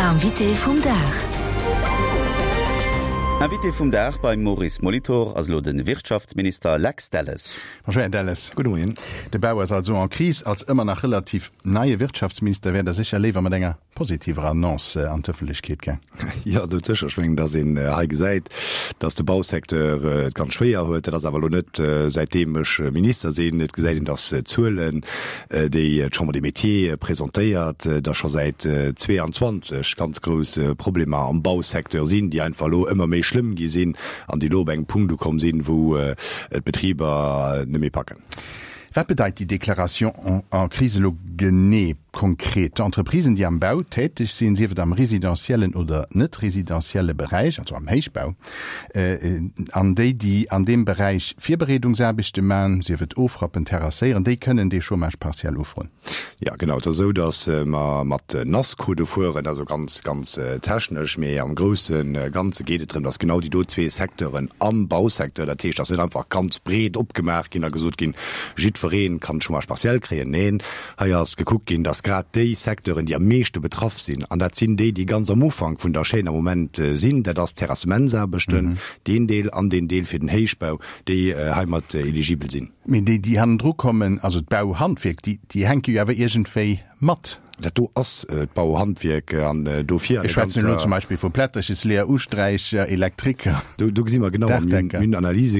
Invité vum Dag. Invité vum Dag beim Maurice Molitor ass elo de Wirtschaftsminister Lex Delles. Bonjour Här Delles. Gudde Moien. De Bau ass also en crise. Als ëmmer nach relativ neie Wirtschaftsminister wäert Der sécher léiwer mat enger positiver Annonce an d'Ëffentlechkeet gaang. Jo, dout sécher. Ech mengen, datt een hei gesäit, datt de Bausecteur et ganz schwéier huet. Dat ass awer elo net säitdeem ech Minister sinn. Et gesäit een, datt d'Zuelen, déi d'Chambre des Métiers presentéiert, datt scho säit 22 ganz grouss Problemer am Bausecteur sinn, déi einfach elo ëmmer méi schlëmm gi sinn an déi elo op engem Punkt ukomm sinn, wou d'Betriber net méi packen. Wat bedeit déi Déclaration en crise elo genee, konkret? D'Entreprisen, déi am Bau täteg sinn, sief et am residentiellen oder net residentielle Beräich, also am Héichbau, an déi, déi an deem Beräich Virbereedungsaarbechte man, sief et ofrappen, terrasséieren, déi kënnen dee Chômage partiel ufroen. Jo, genau. Et ass esou, datt mer mat NAS-Codë fueren, also ganz, ganz technesch. Mee am grousse Ganze geet et drëm, datt genau déi do zwee Secteuren am Bausecteur, dat heescht, datt net einfach ganz breet opgemaach ginn a gesot ginn, jiddweree kann Chômage partiel kréien. Neen, hei ass gekuckt ginn, datt grad déi Secteuren, déi am meeschte betraff sinn, an dat sinn déi, déi ganz am Ufank vun der Chaîne am Moment sinn, dat ass d'Terrassementsaarbechten, deen Deel an deen Deel fir den Héichbau, déi heimat eligibel sinn. Mee déi, déi hannendru kommen, also d'Bauhandwierk, déi, déi hänke jo awer iergendwéi mat. Dat do ass d'Bauhandwierk an dofir an Ech schwätzen elo zum Beispill vu Plätterchesleeër, Usträicher, Elektriker, Do, do gesi mer genau, a mir hunn Analyse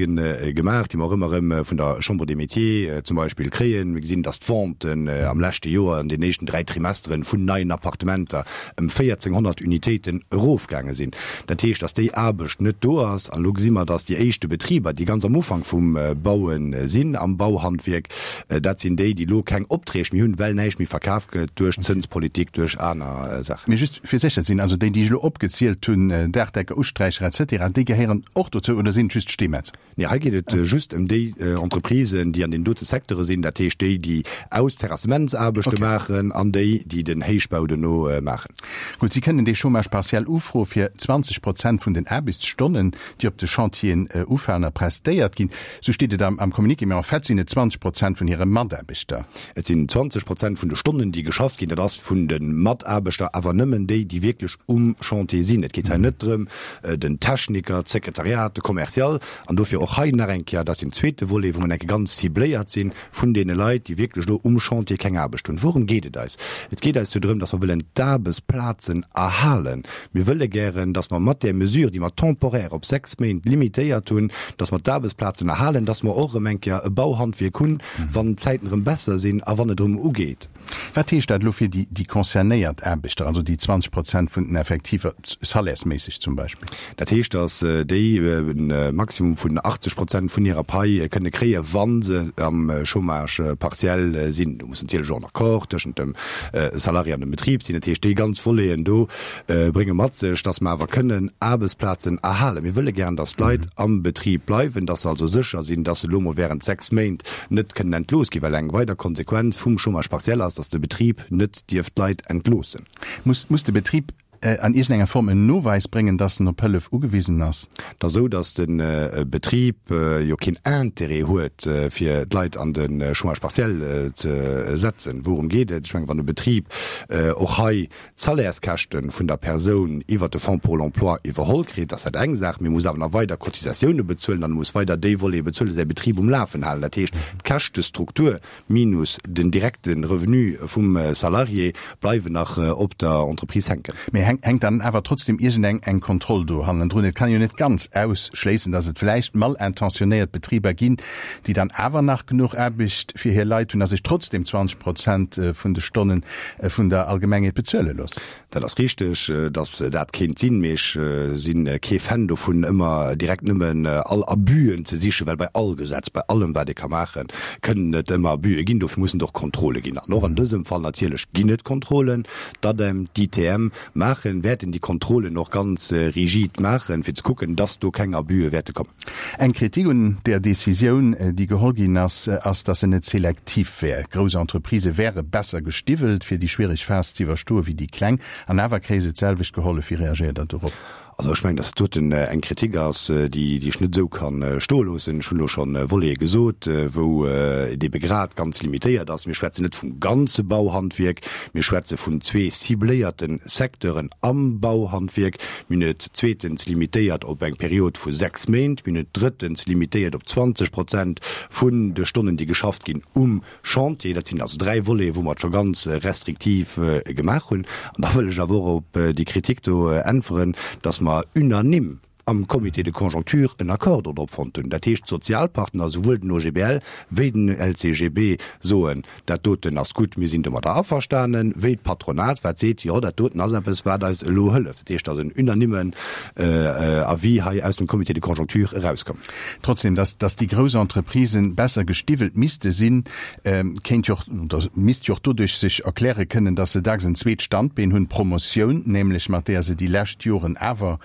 gemaach, déi mer och ëmmer erëm vun der Chambre des Métiers zum Beispill kréien. Mir gesinn, datt d'Venten am leschte Joer an den éischten dräi Trimesteren vun neien Appartementer ëm 1.400 Unitéiten erofgaange sinn. Dat heescht, datt déi Aarbecht net do ass. An elo gesi mer, datt déi éischte Betriber, déi ganz am Ufank vum Baue sinn, am Bauhandwierk, dat sinn déi, déi elo keng Opträg méi hunn, well näischt méi verkaf gëtt duerch d'Zënspolitik, duerch aner Saachen. Mee just fir sécher ze sinn, also déi, déi ech elo opgezielt hunn, Daachdecker, Usträicher et cetera, déi gehéieren och dozou oder sinn et just d'Steemetz? Nee, hei geet et just ëm déi Entreprisen, déi an deenen dote Secteure sinn, dat heescht déi, déi Aus-Terrassementsaarbechte maachen an déi, déi den Héichbau dono maachen. Gutt, si kënnen dee Chômage partiel ufroe fir 20 Prozent vun den Aarbechtsstonnen, déi op de Chantieren ufalen a prestéiert ginn. Esou steet et am Communiqué, mee en fait sinn et 20 Prozent vun hire Mataarbechter. Et sinn 20 Prozent vun de Stonnen, déi geschafft ginn. Dat ass vun de Mataarbechter, awer nëmmen déi, déi wierklech um Chantier sinn. Et geet hei net drëm, den Techniker, d'Sekretariat, de Commercial, an dofir och hei nach eng Kéier, dat ass deen zweete Volet, wou mer enke ganz cibléiert sinn, vun deene Leit, déi wierklech elo um Chantier keng Aarbecht hunn. Wourëm geet et eis? Et geet eis jo drëm, dass mer wëllen d'Aarbechtsplazen erhalen. Mir wëlle gären, dass mer mat där Mesure, déi mer temporaire op sechs Méint limitéiert hunn, dass mer d'Aarbechtsplazen erhalen, dass mer och erëm eng Kéier e Bauhandwierk hunn, wann d'Zäiten erëm besser sinn a wann et erëm ugeet. Wat heescht dat elo fir déi concernéiert Aarbechter, also déi 20 Prozent vun den Effektiver, salairesméisseg zum Beispill? Dat heescht, datt déi e Maximum vun 80 Prozent vun hirer Pai kënne kréien, wa se am Chômage partiel sinn. Do muss natierlech och en Accord tëschent dem Salarié an dem Betrib sinn. Dat heescht, déi ganz Voleten do brénge mat sech, datt mer awer kënnen Aarbechtsplazen erhalen. Mir wëlle gären, datt d'Leit am Betrib bleiwen, datt se also sécher sinn, datt se elo mol während 6 Méint net kënnen entlooss ginn, well eng weider Konsequenz vum Chômage partiel ass, datt de Betrib net dierf d'Leit entloossen. Muss muss de Betrib an iergendenger Form en Noweis bréngen, datt en op Hëllef ugewisen ass? Et ass esou, datt de Betrib jo keen Intérêt huet, fir d'Leit an de Chômage partiel ze setzen. Wourëm geet et? Ech mengen, wann e Betrib och hei d'Salairskäschte vun der Persoun iwwert de Fonds pour l'emploi iwwerholl kritt, ass dat eng Saach, mee e muss awer nach weider Cotisatioune bezuelen an e muss weider déi Volete bezuelen, säi Betrib um Lafen halen. Dat heescht, d'Käschtestruktur minus den direkte Revenu vum Salarié bleiwen nach op der Entreprise hänken. Mee hänkt dann awer trotzdem iergendeng eng Kontroll do hannendrun? Et kann een jo net ganz ausschléissen, datt et vläicht malintentionéiert Betriber ginn, déi dann awer nach genuch Aarbecht fir hir Leit hunn a sech trotzdem 20 Prozent vun de Stonnen vun der Allgemengheet bezuele loossen. Dat ass richteg, datt dat kéint sinn, mee ech si kee Fan dovun, ëmmer direkt nëmmen all Abüen ze sichen, well bei all Gesetz, bei allem wat ee ka maachen, kënnen et ëmmer Abüe ginn. Dofir mussen et och Kontrolle ginn. An och an dësem Fall natierlech ginn et Kontrollen. D'ADEM, d'ITM maachen, wäerten déi Kontrollen och ganz rigid maachen, fir ze kucken, datt do keng Abüe wäerte kommen. Eng Kritik un där Decisioun, déi geholl ginn ass, ass, datt se net selektiv wär. Grouss Entreprisë wäre besser gestiwwelt, fir déi schwiereg Phas ze iwwerstoe wéi déi kleng. An awer kréie se d'selwecht gehollef. Wéi reagéiert Der dorop? Also ech mengen, datt dat doten eng Kritik ass, déi ech net esou ka stoe loossen. Ech hunn elo scho Volete gesot, wou et ebe grad ganz limitéiert ass. Mir schwätzen net vum ganze Bauhandwierk, mir schwätze vun zwee cibléierte Secteuren am Bauhandwierk. Mir hunn et zweetens limitéiert op eng Period vu 6 Méint. Mir hunn et drëttens limitéiert op 20 Prozent vun de Stonnen, déi geschafft ginn um Chantier. Dat sinn also dräi Voleten, wou mer et scho ganz restriktiv gemaach hunn. An da wëll ech awer och op déi Kritik do äntweren, dass mer unanime am Comité de conjoncture en Accord dodrop fonnt hunn. Dat heescht, d'Sozialpartner, souwuel den OGBL wéi den LCGB, soen, dat doten ass gutt, mir sinn domadder averstanen, wéi d'Patronat, wat seet, jo, dat doten ass eppes, wat eis elo hëlleft. Dat heescht, et ass en unanimmen Avis hei aus dem Comité de conjoncture erauskomm. Trotzdem, dass, dass déi grouss Entreprisen besser gestiwwelt misste sinn, kéint jo och, oder misst jo och doduerch sech erkläre kënnen, dass se dacks en zweet Standbeen hunn, d'Promotioun nämlech, mat deeër se déi lescht Joren awer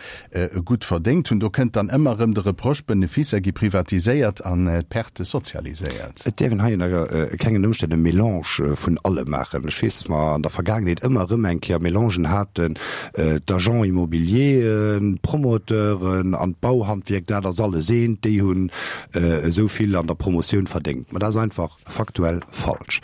gutt verdéngt hunn. Do kënnt dann ëmmer erëm de Reproche, d'Beneficer gi privatiséiert an d'Perte sozialiséiert. Et däerf een hei ënner kengen Ëmstänn e Melange vun allem maachen. Ech weess, dass mer an der Vergaangenheet ëmmer erëm eng Kéier Melangen haten, d'Agents immobiliers, d'Promoteuren an d'Bauhandwierk, dat ass alles eent, déi hunn esou vill an der Promotioun verdéngt. Ma dat ass einfach faktuell falsch.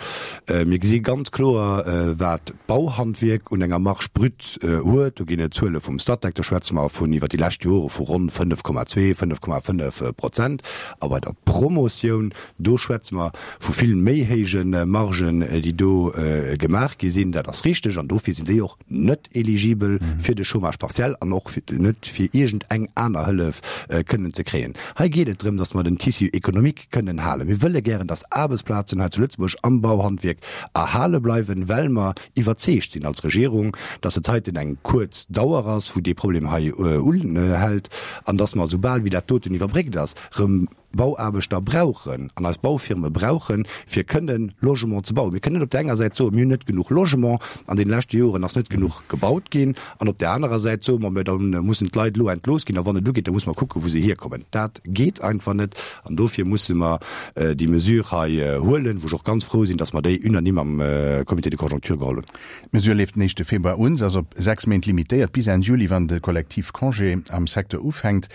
Mir gesi ganz kloer, wat d'Bauhandwierk un enger Marge brute huet. Do ginn et Zuele vum Statec, do schwätze mer vun iwwer déi lescht Jore vu ronn 5,2, 5,5 Prozent. A bei der Promotioun, do schwätze mer vu vill méi héije Margen, déi do gemaach gi sinn. Dat ass richteg an dofir sinn déi och net eligibel fir de Chômage partiel an och net fir iergend eng aner Hëllef kënnen ze kréien. Hei geet et drëm, datt mer den Tissu économique kënnen halen. Mir wëlle gären, datt Aarbechtsplazen hei zu Lëtzebuerg am Bauhandwierk erhale bleiwen, well mer iwwerzeegt sinn als Regierung, datt et heiten eng kuerz Dauer ass, wou dee Problem hei unhält an datt mer, soubal wéi dat doten iwwerbréckt ass, erëm Bauaarbechter brauchen an eis Baufirme brauchen, fir kënnen Logement ze bauen. Mir kënnen net op där enger Säit soen, mir hunn net genuch Logement, an deene leschte Joren ass net genuch gebaut ginn, an op där anerer Säit soe mer, mä da mussen d'Leit elo entlooss ginn a wann et ugeet, da musse mer kucken, wou se hierkommen. Dat geet einfach net an dofir musse mer déi Mesure hei huelen, wou ech och ganz frou sinn, dass mer déi unanime am Comité de conjoncture geholl hunn. D'Mesure leeft den éischte Februar un. Se ass op 6 Méint limitéiert, bis Enn Juli, wann de Kollektivcongé am Secteur ufänkt.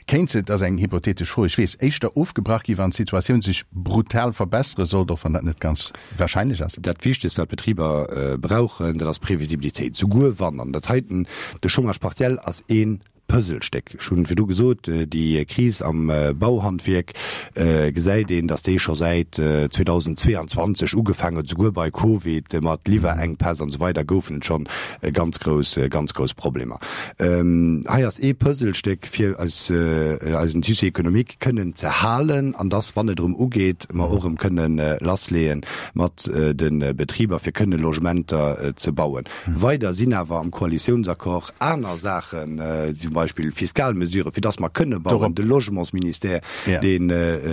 Kéint se, et ass eng hypothetesch Fro, ech weess, éischter ofgebrach gi wann d'Situatioun sech brutal verbessere sollt, och wann dat net ganz warscheinlech ass? Dat Wichtegst, wat d'Betriber brauchen, dat ass Previsibilitéit. Souguer wann, an dat heiten, de Chômage partiel ass ee Puzzlestéck. Ech hunn virdu gesot, déi Kris am Bauhandwierk gesäit een, datt déi scho säit 2022 ugefaangen huet, souguer bei Covid mat Liwwerenkpäss an esou weider goufen et schonn ganz grouss, ganz grouss Problemer. Hei ass ee Puzzlestéck, fir eis, eisen Tissu économique kënnen ze halen an dass, wann et erëm ugeet, mer och erëm kënnen lassleeë mat de Betriber, fir kënne Logementer ze bauen. Weider sinn awer am Koalitiounsaccord aner Saachen, zum Beispill fiskal Mesuren, fir dass mer kënne bauen, de Logementsministère, deen.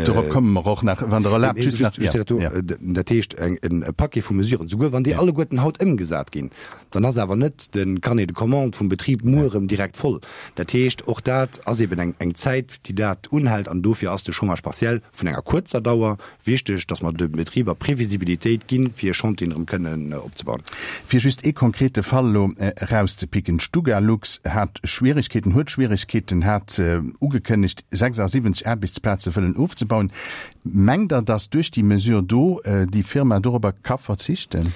Dorop komme mer och nach, wann Der erlaabt, just nach. Dat heescht, e Paquet vu Mesuren, souguer wann déi alleguerten haut ëmgesat ginn, dann ass awer net de Carnet de commandes vum Betrib muer erëm direkt voll. Dat heescht, och dat ass eben eng Zäit, déi dat unhält an dofir ass de Chômage partiel vun enger kuerzer Dauer wichteg, dass mer de Betriber Previsibilitéit ginn, fir hir Chantieren erëm kënnen opzebauen. Fir just ee konkrete Fall elo erauszepicken, D'Stugalux hat Schwierigkeeten, huet Schwierigkeeten, hat ugekënnegt, 76 Aarbechtsplaze wëllen ofzebauen. Mengt Der, dass duerch déi Mesure do déi Firma dorobber ka verzichten?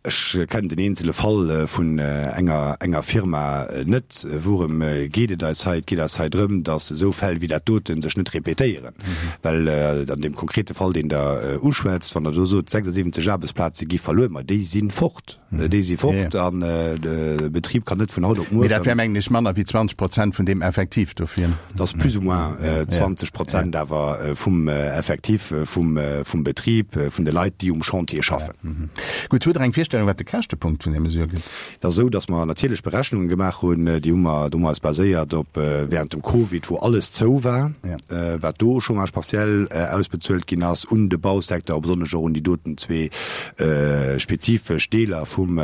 Ech kennen den eenzele Fall vun enger enger Firma net. Wourëm geet et eis hei? Et geet eis hei drëm, datt esou Fäll wéi dat dote sech net repetéieren. Well an deem konkrete Fall, deen Der uschwätzt, wann Der do sot, 76 Aarbechtsplaze gi verluer, ma déi si fort. Déi si fort an de Betrib kann net vun haut op muer. Mee dat wär, mengen ech, manner wéi 20 Prozent vun deem Effektiv dofir. Dat ass plus ou moins 20 Prozent awer vum Effektif vum Betrib, vun de Leit, déi um Chantier schaffen. Gutt, hutt Der eng Virstellung, wat de Käschtepunkt vun där Mesure gëtt? Et ass esou, datt mer natierlech Berechnunge gemaach hunn. Déi hu mer, do hu mer eis baséiert op während dem Covid, wou alles zou war, wat do u Chômage partiel ausbezuelt ginn ass un de Bausecteur, a besonnesch och un déi doten zwee spezifesch Deeler vum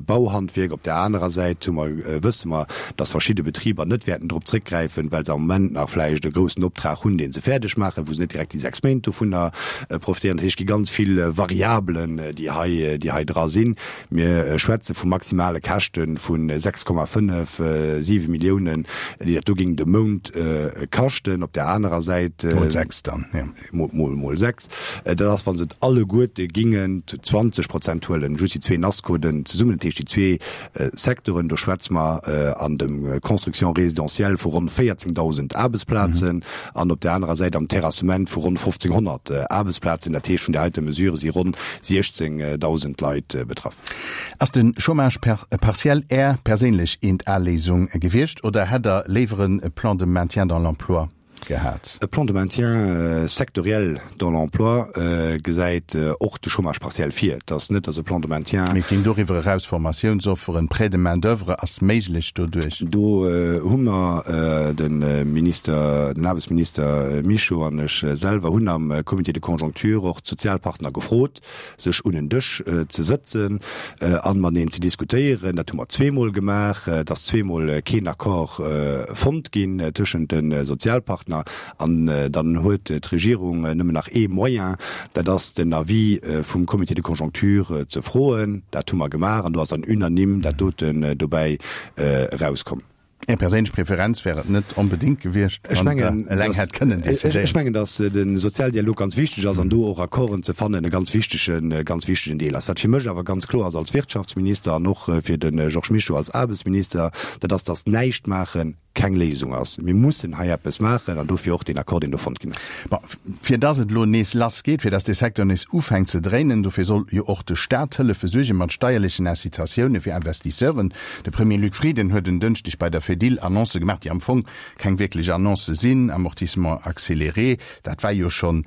Bauhandwierk. Op där anerer Säit hu mer, wësse mer, datt verschidde Betriber net wäerten drop zréckgräifen, well se am Moment nach vläicht e groussen Optrag hunn, dee se fäerdeg maachen, wou se net direkt déi 6 Méint dovunner profitéieren. Dat heescht, et gi ganz vill Variabelen, déi hei, déi hei dra sinn. sinn. Mir schwätze vu maximale Käschte vu 6,5, 7 Milliounen, déi dat do géing de Mount kaschten. Op där anerer Säit. Mol 6 dann, jo. Mol 6. Dat ass, wa se et alleguerte gingen zu 20 Prozent huelen, just déi zwee NASCODen zesummen, dat heescht déi zwee Secteuren. Do schwätze mer an dem Construction résidentielle vu ronn 14.000 Aarbechtsplazen an op där anerer Säit am Terrassement vu ronn 1.500 Aarbechtsplazen. Dat heescht, vun där heite Mesure si ronn 16.000 Leit betraff. Ass de Chômage partiel Är perséinlech eent Léisung gewiescht oder hätt Der léiwer e Plan de maintien dans l'emploi gehat? E Plan de maintien sectoriel dans l'emploi gesäit och de Chômage partiel vir. Et ass net, datt e Plan de maintien. Mee et ginn doriwwer eraus Formatiounsofferen, Prêt de main d'oeuvre ass méiglech doduerch. Do hu mer, de Minister, den Aarbechtsminister Mischo an ech selwer hunn am Comité de conjoncture och d'Sozialpartner gefrot, sech un en Dësch ze sëtzen an mateneen ze diskutéieren. Dat hu mer zweemol gemaach. Et ass zweemol keen Accord fonnt ginn tëschent de Sozialpartner. An dann huet d'Regierung nëmmen nach ee Moyen, dat ass den Avis vum Comité de conjoncture ze froen. Dat hu mer gemaach an do ass dann unanime dat doten dobäi erauskomm. Är perséinlech Preferenz wär et net onbedéngt gewiescht, wann Der eleng hätt kënnen decidéieren. Ech mengen, datt de Sozialdialog ganz wichteg ass an do och Accorden ze fannen e ganz wichtegen, ganz wichtegen Deel ass. Wat fir mech awer ganz kloer ass als Wirtschaftsminister an och fir de Georges Mischo als Aarbechtsminister, dat ass, datt näischt maache keng Léisung ass. Mir mussen hei eppes maachen an dofir och deen Accord, deen do fonnt ginn ass. Bon, fir datt et elo nees lass geet, fir datt dee Secteur nees ufänkt ze dréinen, dofir soll jo och de Staat hëllefe suerge mat steierlechen Incitatioune fir Investisseuren. De Premier Luc Frieden huet en Dënschdeg bei der Fedil Annoncë gemaach, déi am Fong keng wierklech Annoncë sinn, Amortissement accéléré, dat war jo schonn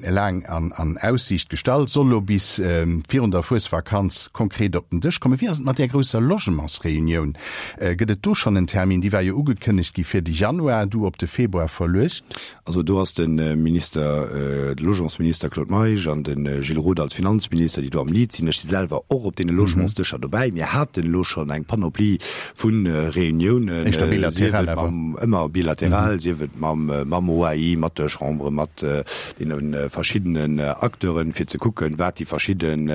laang an Aussiicht gestallt, soll elo bis virun der Fuesvakanz konkret op den Dësch kommen. Wéi ass et mat där grousser Logementsreunioun? Gëtt et do schonn en Termin? Déi war jo ugekënnegt gi fir de Januar, du op de Februar verluecht. Also do ass de Minister, de Logementsminister Claude Meisch an de Gilles Roth als Finanzminister, déi do am Lead sinn. Ech si selwer och op deene Logementsdëscher dobäi. Mir haten elo schonn eng Panoplie vu Reuniounen, Éischter bilateral awer. Ëmmer bilateral, sief et mam, mam OAI, mat der Chambre, mat deene verschiddenen Acteuren, fir ze kucken, wat déi verschidden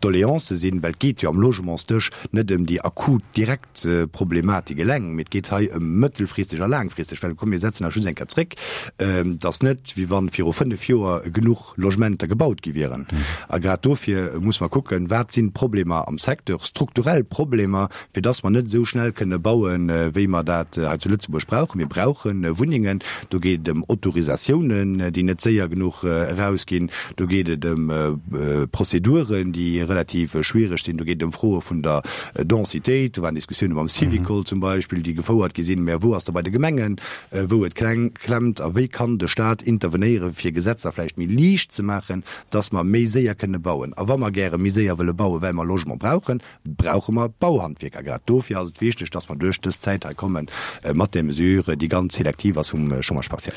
Doleancë sinn. Well et geet jo am Logementsdësch net ëm déi akut, direkt Problematik eleng, mee et geet hei ëm mëttelfristeg a laangfristeg, well komm mir setzen eis just eng Kéier zréck, et ass net wéi wann viru 5 Joer genuch Logementer gebaut gi wieren. A grad dofir muss mer kucken, wat sinn d'Problemer am Secteur, strukturell Problemer, fir dass mer net esou schnell kënne bauen, wéi mer dat hei zu Lëtzebuerg brauchen. Mir brauche Wunnengen, do geet et ëm Autorisatiounen, déi net séier genuch erausginn, do geet et ëm Prozeduren, déi relativ schwiereg sinn, do geet et ëm Froe vun der Densitéit, do waren Diskussioune mam Syvicol zum Beispill, déi gefouert gi sinn. Mä wou ass da bei de Gemengen, wou et klemmt? A wéi kann de Stat intervenéieren, fir Gesetzer vläicht méi liicht ze maachen, dass mer méi séier kënne bauen? A wa mer gäre méi séier wëlle bauen, well mer Logement brauchen, brauche mer Bauhandwierker. Grad dofir ass et wichteg, dass mer duerch dës Zäit hei komme mat där Mesure, déi ganz selektiv ass vum Chômage partiel.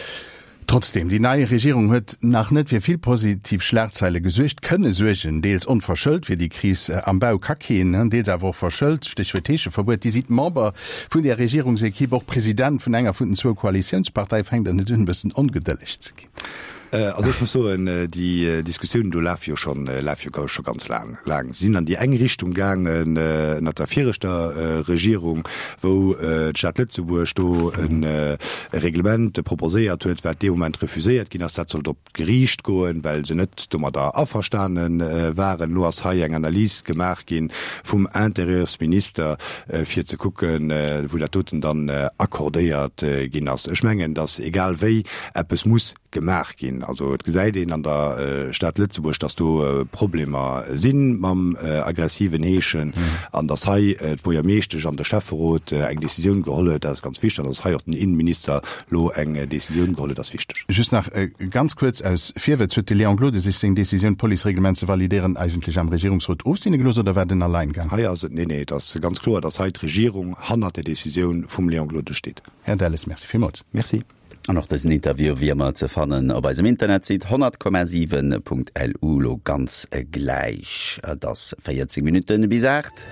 Trotzdem, déi nei Regierung huet nach net fir vill positiv Schlagzeile gesuergt, kënne suergen, deels onverschëllt, fir déi Kris am Bau ka keen, deels awer och verschëllt, Stéchwuert Heescheverbuet. Dir sidd Member vun där Regierungsequipe, och President vun enger vun den zwou Koalitiounsparteie. Fänkt Der net un, e bëssen ongedëlleg ze ginn? Also ech muss soen, déi Diskussiounen do lafe jo schonn, lafe jo scho ganz laang, laang. Si sinn an déi eng Richtung gaangen ënnert der viregter Regierung, wou d'Stad Lëtzebuerg do e Reglement proposéiert huet, wat dee Moment refuséiert ginn ass. Dat sollt op d'Geriicht goen, well se net domadder averstane waren. Elo ass hei eng Analys gemaach gi vum Intérieursminister, fir ze kucken, wou dat doten dann accordéiert ginn ass. Ech mengen, datt egal wéi eppes muss gemaach ginn. Also et gesäit een an der Stad Lëtzebuerg, datt do Problemer si mam aggressiven Heeschen an datt hei d'Buergermeeschtesch an de Schäfferot eng Decisioun geholl huet, dat ass ganz wichteg an datt hei och den Innenminister elo eng Decisioun geholl huet, ass wichteg. Just nach ganz kuerz aus Virwëtz, Huet de Léon Gloden sech seng Decisioun, d'Policereglement ze validéieren, eigentlech am Regierungsrot ofseene gelooss oder war den Alleingang? Hei ass et, nee, nee, et ass ganz kloer, datt hei d'Regierung hannert der Decisioun vum Léon Gloden steet. Här Delles, Merci villmools. Merci. An och dësen Interview wéi ëmmer ze fannen op eisem Internetsite 100,7.lu. Lo ganz gläich, et ass 14 Minutten bis 8.